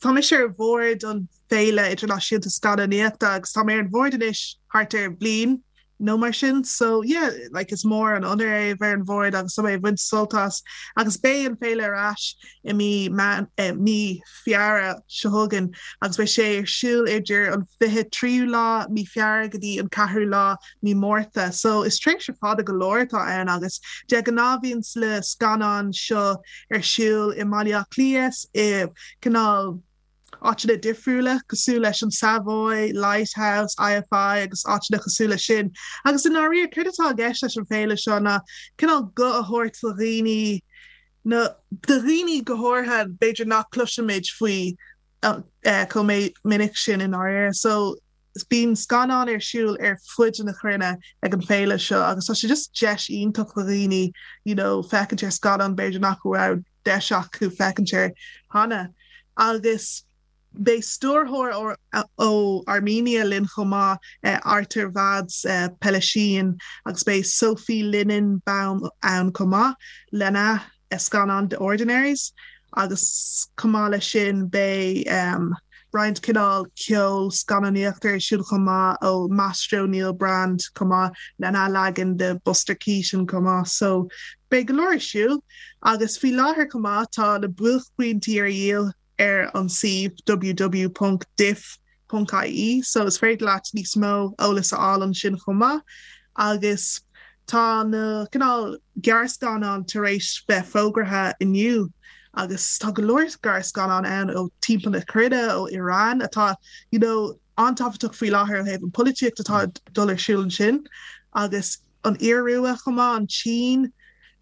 Tá mise ar bhord an Féile Idirnáisiúnta Scannánaíochta agus tá mé ar an bhord anois thart ar bhliain nó mar sin so yeah like is mór an onóir é a bheith ar an bhord agus tá mé ag baint sult as agus beidh an féile ar ais i mí eh, mí Feabhra seo chugainn agus beidh sé ar siúl idir an 23ú lá mí Feabhra go dtí an 4ú lá mí Márta so is tréimhse fada go leor atá ann agus de ghnáth bíonn na scannáin seo ar siúl i mBaile Átha Cliath i cineál áiteanna difriúla cosúil leis an Savoy, Lighthouse, IFI agus áiteanna cosúil leis sin. Agus i ndáiríre céard atá i gceist leis an féile seo ná cineál guth a thabhairt do dhaoine na do dhaoine go háirithe b'fhéidir nach cloisimid faoi chomh minic sin i ndáiríre. So bíonn scannáin ar siúl ar fud na cruinne ag an féile seo agus tá sé just deis iontach do dhaoine you know féachaint ar scannán b'fhéidir nach raibh deis acu féachaint air cheana. Agus beidh stiúrthóir ó Armenia linn chomh maith, Artavazd Peleshyan, agus beidh Sophie Linenbaum ann chomh maith lena scannán The Ordinaries agus chomh maith leis sin beidh roinnt cineál ceol scannánaíochta ar siúl chomh maith ó Maestro Neil Brand chomh maith lena leagan de Buster Keaton chomh maith so beidh go leor ar siúl agus faoi láthair chomh maith tá na buaicphointí ar dhíol ar an suíomh www.diff.ie so is féidir leat níos mó eolas a fháil ansin chomh maith agus tá na cineál gearrscannáin tar éis bheith fógartha inniu agus tá go leor gearrscannán ann ó timpeall na cruinne, ó Iran atá you know an-tábhachtach faoi láthair ó thaobh an polaitíocht atá ag dul ar siúl ansin agus an Iorua chomh maith, an tSín,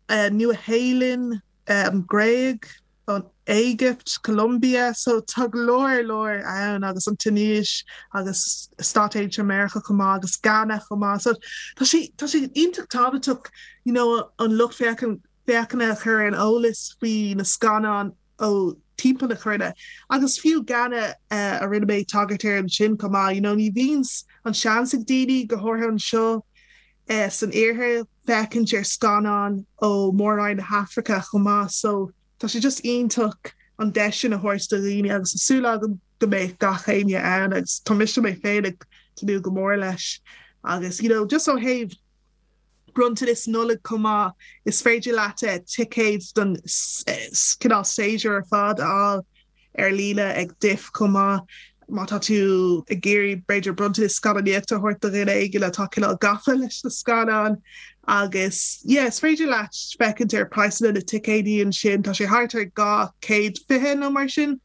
Nua-Shéalainn, an Ghréig. an Éigipt, Colombia, so tá go leor leor ann agus an Tuinéis agus Stáit Aontaithe Meiriceá chomh maith agus Ghana chomh maith. So tá sé tá sé iontach tábhachtach you know an lucht féachan féachana a chur ar an eolas faoi na scannáin ó timpeall na cruinne agus fiú Ghana a rinne mé tagairt air ansin chomh maith you know ní bhíonn an seans ag daoine go háirithe anseo san iarthar féachaint ar scannáin ó Mhór-Roinn na hAfraice chomh maith so tá sé just iontach an deis sin a thabhairt do dhaoine agus tá súil agam go mbeidh gach éinne ann agus tá mise mé féin ag tnúth go mór leis agus you know just ó thaobh bronntanas Nollag chomh maith is féidir leat ticéid don cineál séasúr ar fad a fháil ar líne ag DIFF chomh maith. Má tá tú ag iarraidh b'fhéidir bronntanas scannánaíochta a thabhairt do dhuine éigin atá cineál gafa leis na scannáin agus yeah is féidir leat féachaint ar praghsanna na ticéidí ansin, tá sé thart ar 220 nó mar sin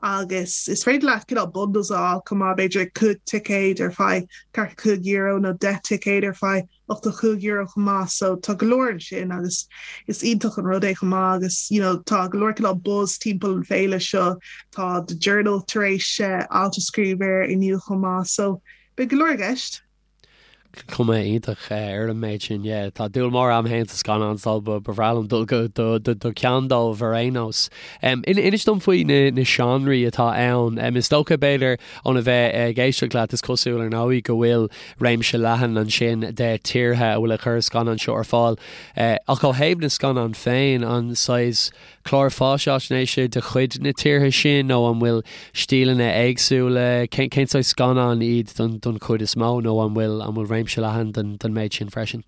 agus is féidir leat cineál bundles a fháil chomh maith, b'fhéidir 5 ticéad ar feadh €45 nó 10 ticéad ar feadh €85 chomh maith so tá go leor ansin agus is iontach an rud é chomh maith agus you know tá go leor cineál buzz timpeall an féile seo tá The Journal tar éis alt a scríobh air inniu chomh maith so beidh go leor i gceist. Cuma iontach ar an méid sin, yeah. Tá dúil mór agam féin sa scannán so ba bhreá liom dul go do ceann dóibh ar aon nós. Inis dom faoi na seánraí atá ann. Is dócha b'fhéidir óna bheith ag éisteacht leat is cosúil ar ndóigh go bhfuil réimse leathan ansin de tíortha a bhfuil ag cur scannán seo ar fáil. Ach ó thaobh na scannán féin, an saghas clár fáisnéise de chuid na tíortha sin nó an bhfuil stíleanna éagsúla, cén saghas scannán iad don chuid is mó nó an bhfuil an bhfuil réimse leathan den méid sin freisin?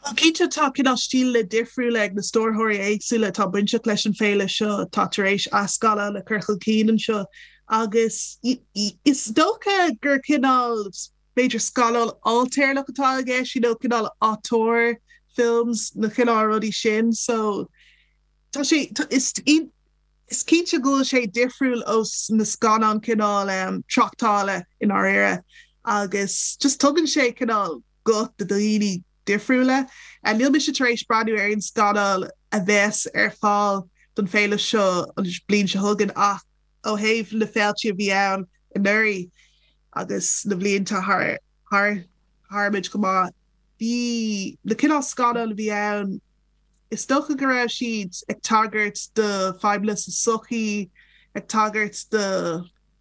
Bhuel, cinnte tá cineál stíleanna difriúla ag na stiúrthóirí éagsúla atá bainteach leis an bhféile seo atá tar éis a scannáin a chur chun cinn anseo agus is dócha gur cineál b'fhéidir scannán ailtéarnach atá i gceist, you know, cineál auteur films, na cineál rudaí sin so tá sé, is is cinnte go bhfuil sé difriúil ó na scannáin cineál tráchtála i ndáiríre agus just tugann sé cineál guth do dhaoine difriúla. Níl mise tar éis breathnú ar aon scannán a bheas ar fáil don féile seo an bhliain seo chugainn ach ó thaobh na féiltí a bhí ann anuraidh agus na bhlianta thar thar tharmuid go maith, bhí na cineál scannán a bhí ann, is dócha go raibh siad ag tagairt do fadhbanna sa sochaí, ag tagairt do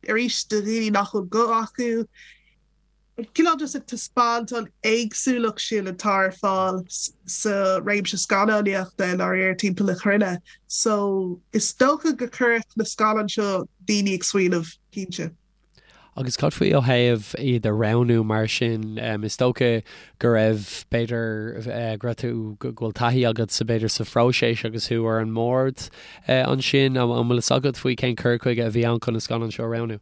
arís do dhaoine nach bhfuil guth acu. Cineál just ag taispeáint an éagsúlacht sin atá ar fáil sa réimse scannánaíochta i ndáiríre timpeall na cruinne. So is dócha go cuirfeadh na scannáin seo daoine ag smaoineamh, cinnte. Agus cad faoi ó thaobh iad a roghnú mar sin? Is dócha go raibh, b'fhéidir, go raibh tú, go bhfuil taithí agat sa, b'fhéidir, sa phróiseas agus thú ar an mbord ansin. An bhfuil fhios agat faoi cén cur chuige a bhí ann chun na scannáin seo a roghnú?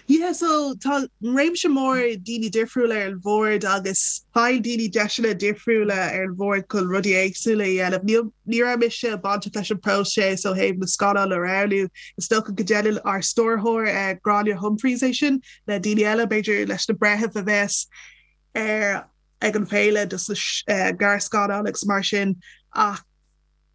Yeah, so tá réimse mór daoine difriúla ar an bhord agus faigheann daoine deiseanna difriúla ar an bhord chun rudaí éagsúla a dhéanamh. Níl, ní raibh mise bainteach leis an bpróiseas ó thaobh na scannáin a roghnú. Is dócha go ndéanann ár stiúrthóir Gráinne Humphreys é sin le daoine eile, b'fhéidir leis na breithimh a bheas ar ag an bhféile dos na gearrscannáin agus mar sin ach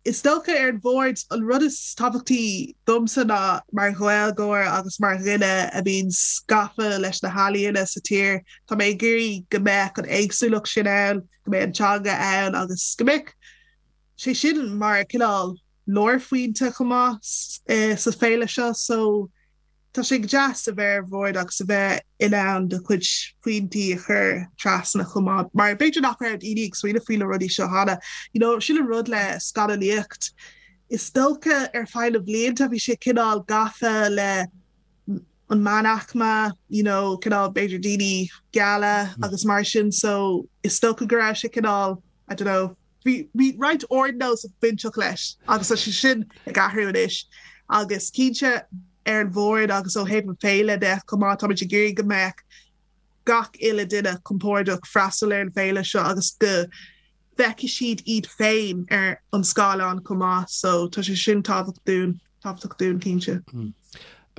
is dócha ar an bhord an rud is tábhachtaí domsa ná mar Ghaeilgeoir agus mar dhuine a bhíonn gafa leis na healaíona sa tír, tá mé ag iarraidh go mbeadh an éagsúlacht sin ann, go mbeadh an teanga ann agus go mbeadh sé sin mar cineál lárphointe chomh maith sa féile seo so tá sé go deas a bheith ar bhord agus a bheith in ann do chuid pointí a chur trasna chomh maith mar b'fhéidir nach raibh daoine ag smaoineamh faoi na rudaí seo cheana. You know, sin an rud le scannánaíocht. Is dócha ar feadh na blianta bhí sé cineál gafa le an meánaicme, you know, cineál b'fhéidir daoine geala agus mar sin so is dócha go raibh sé cineál, I don't know, Bhí bhí roinnt ardnós bainteach leis agus tá sé sin ag athrú anois agus cinnte ar an bhord agus ó thaobh an féile de chomh maith táimid ag iarraidh go mbeadh gach uile duine compordach freastal ar an bhféile seo agus go bhfeicfidh siad iad féin ar an scáileán chomh maith so tá sé sin tábhachtach dúinn. Tábhachtach dúinn, cinnte.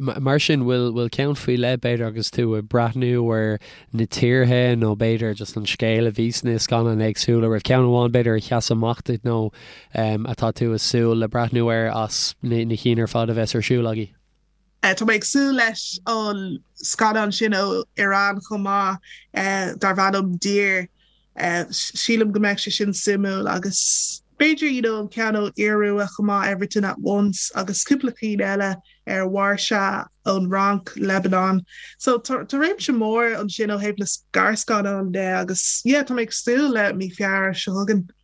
Mar sin, bhfuil bhfuil ceann faoi leith, b'fhéidir, agus tú ag breathnú ar na tíortha nó b'fhéidir just an scéal a bhí sna scannáin éagsúla, raibh ceann amháin b'fhéidir a sheas amach duit nó atá tú ag súil le breathnú air as na cinn ar fad a bheas ar siúl agaibh? Tá mé ag súil leis an scannán sin ó Iran chomh maith, darb ainm Dear. Sílim go mbeidh sé sin suimiúil agus b'fhéidir you know an ceann ó Iorua chomh maith, Everything at Once agus cúpla cinn eile ar Mharsha ón Fhrainc, Lebanon. So tá réimse mór ansin ó thaobh na gearrscannán de agus yeah tá mé ag súil le mí Feabhra seo chugainn.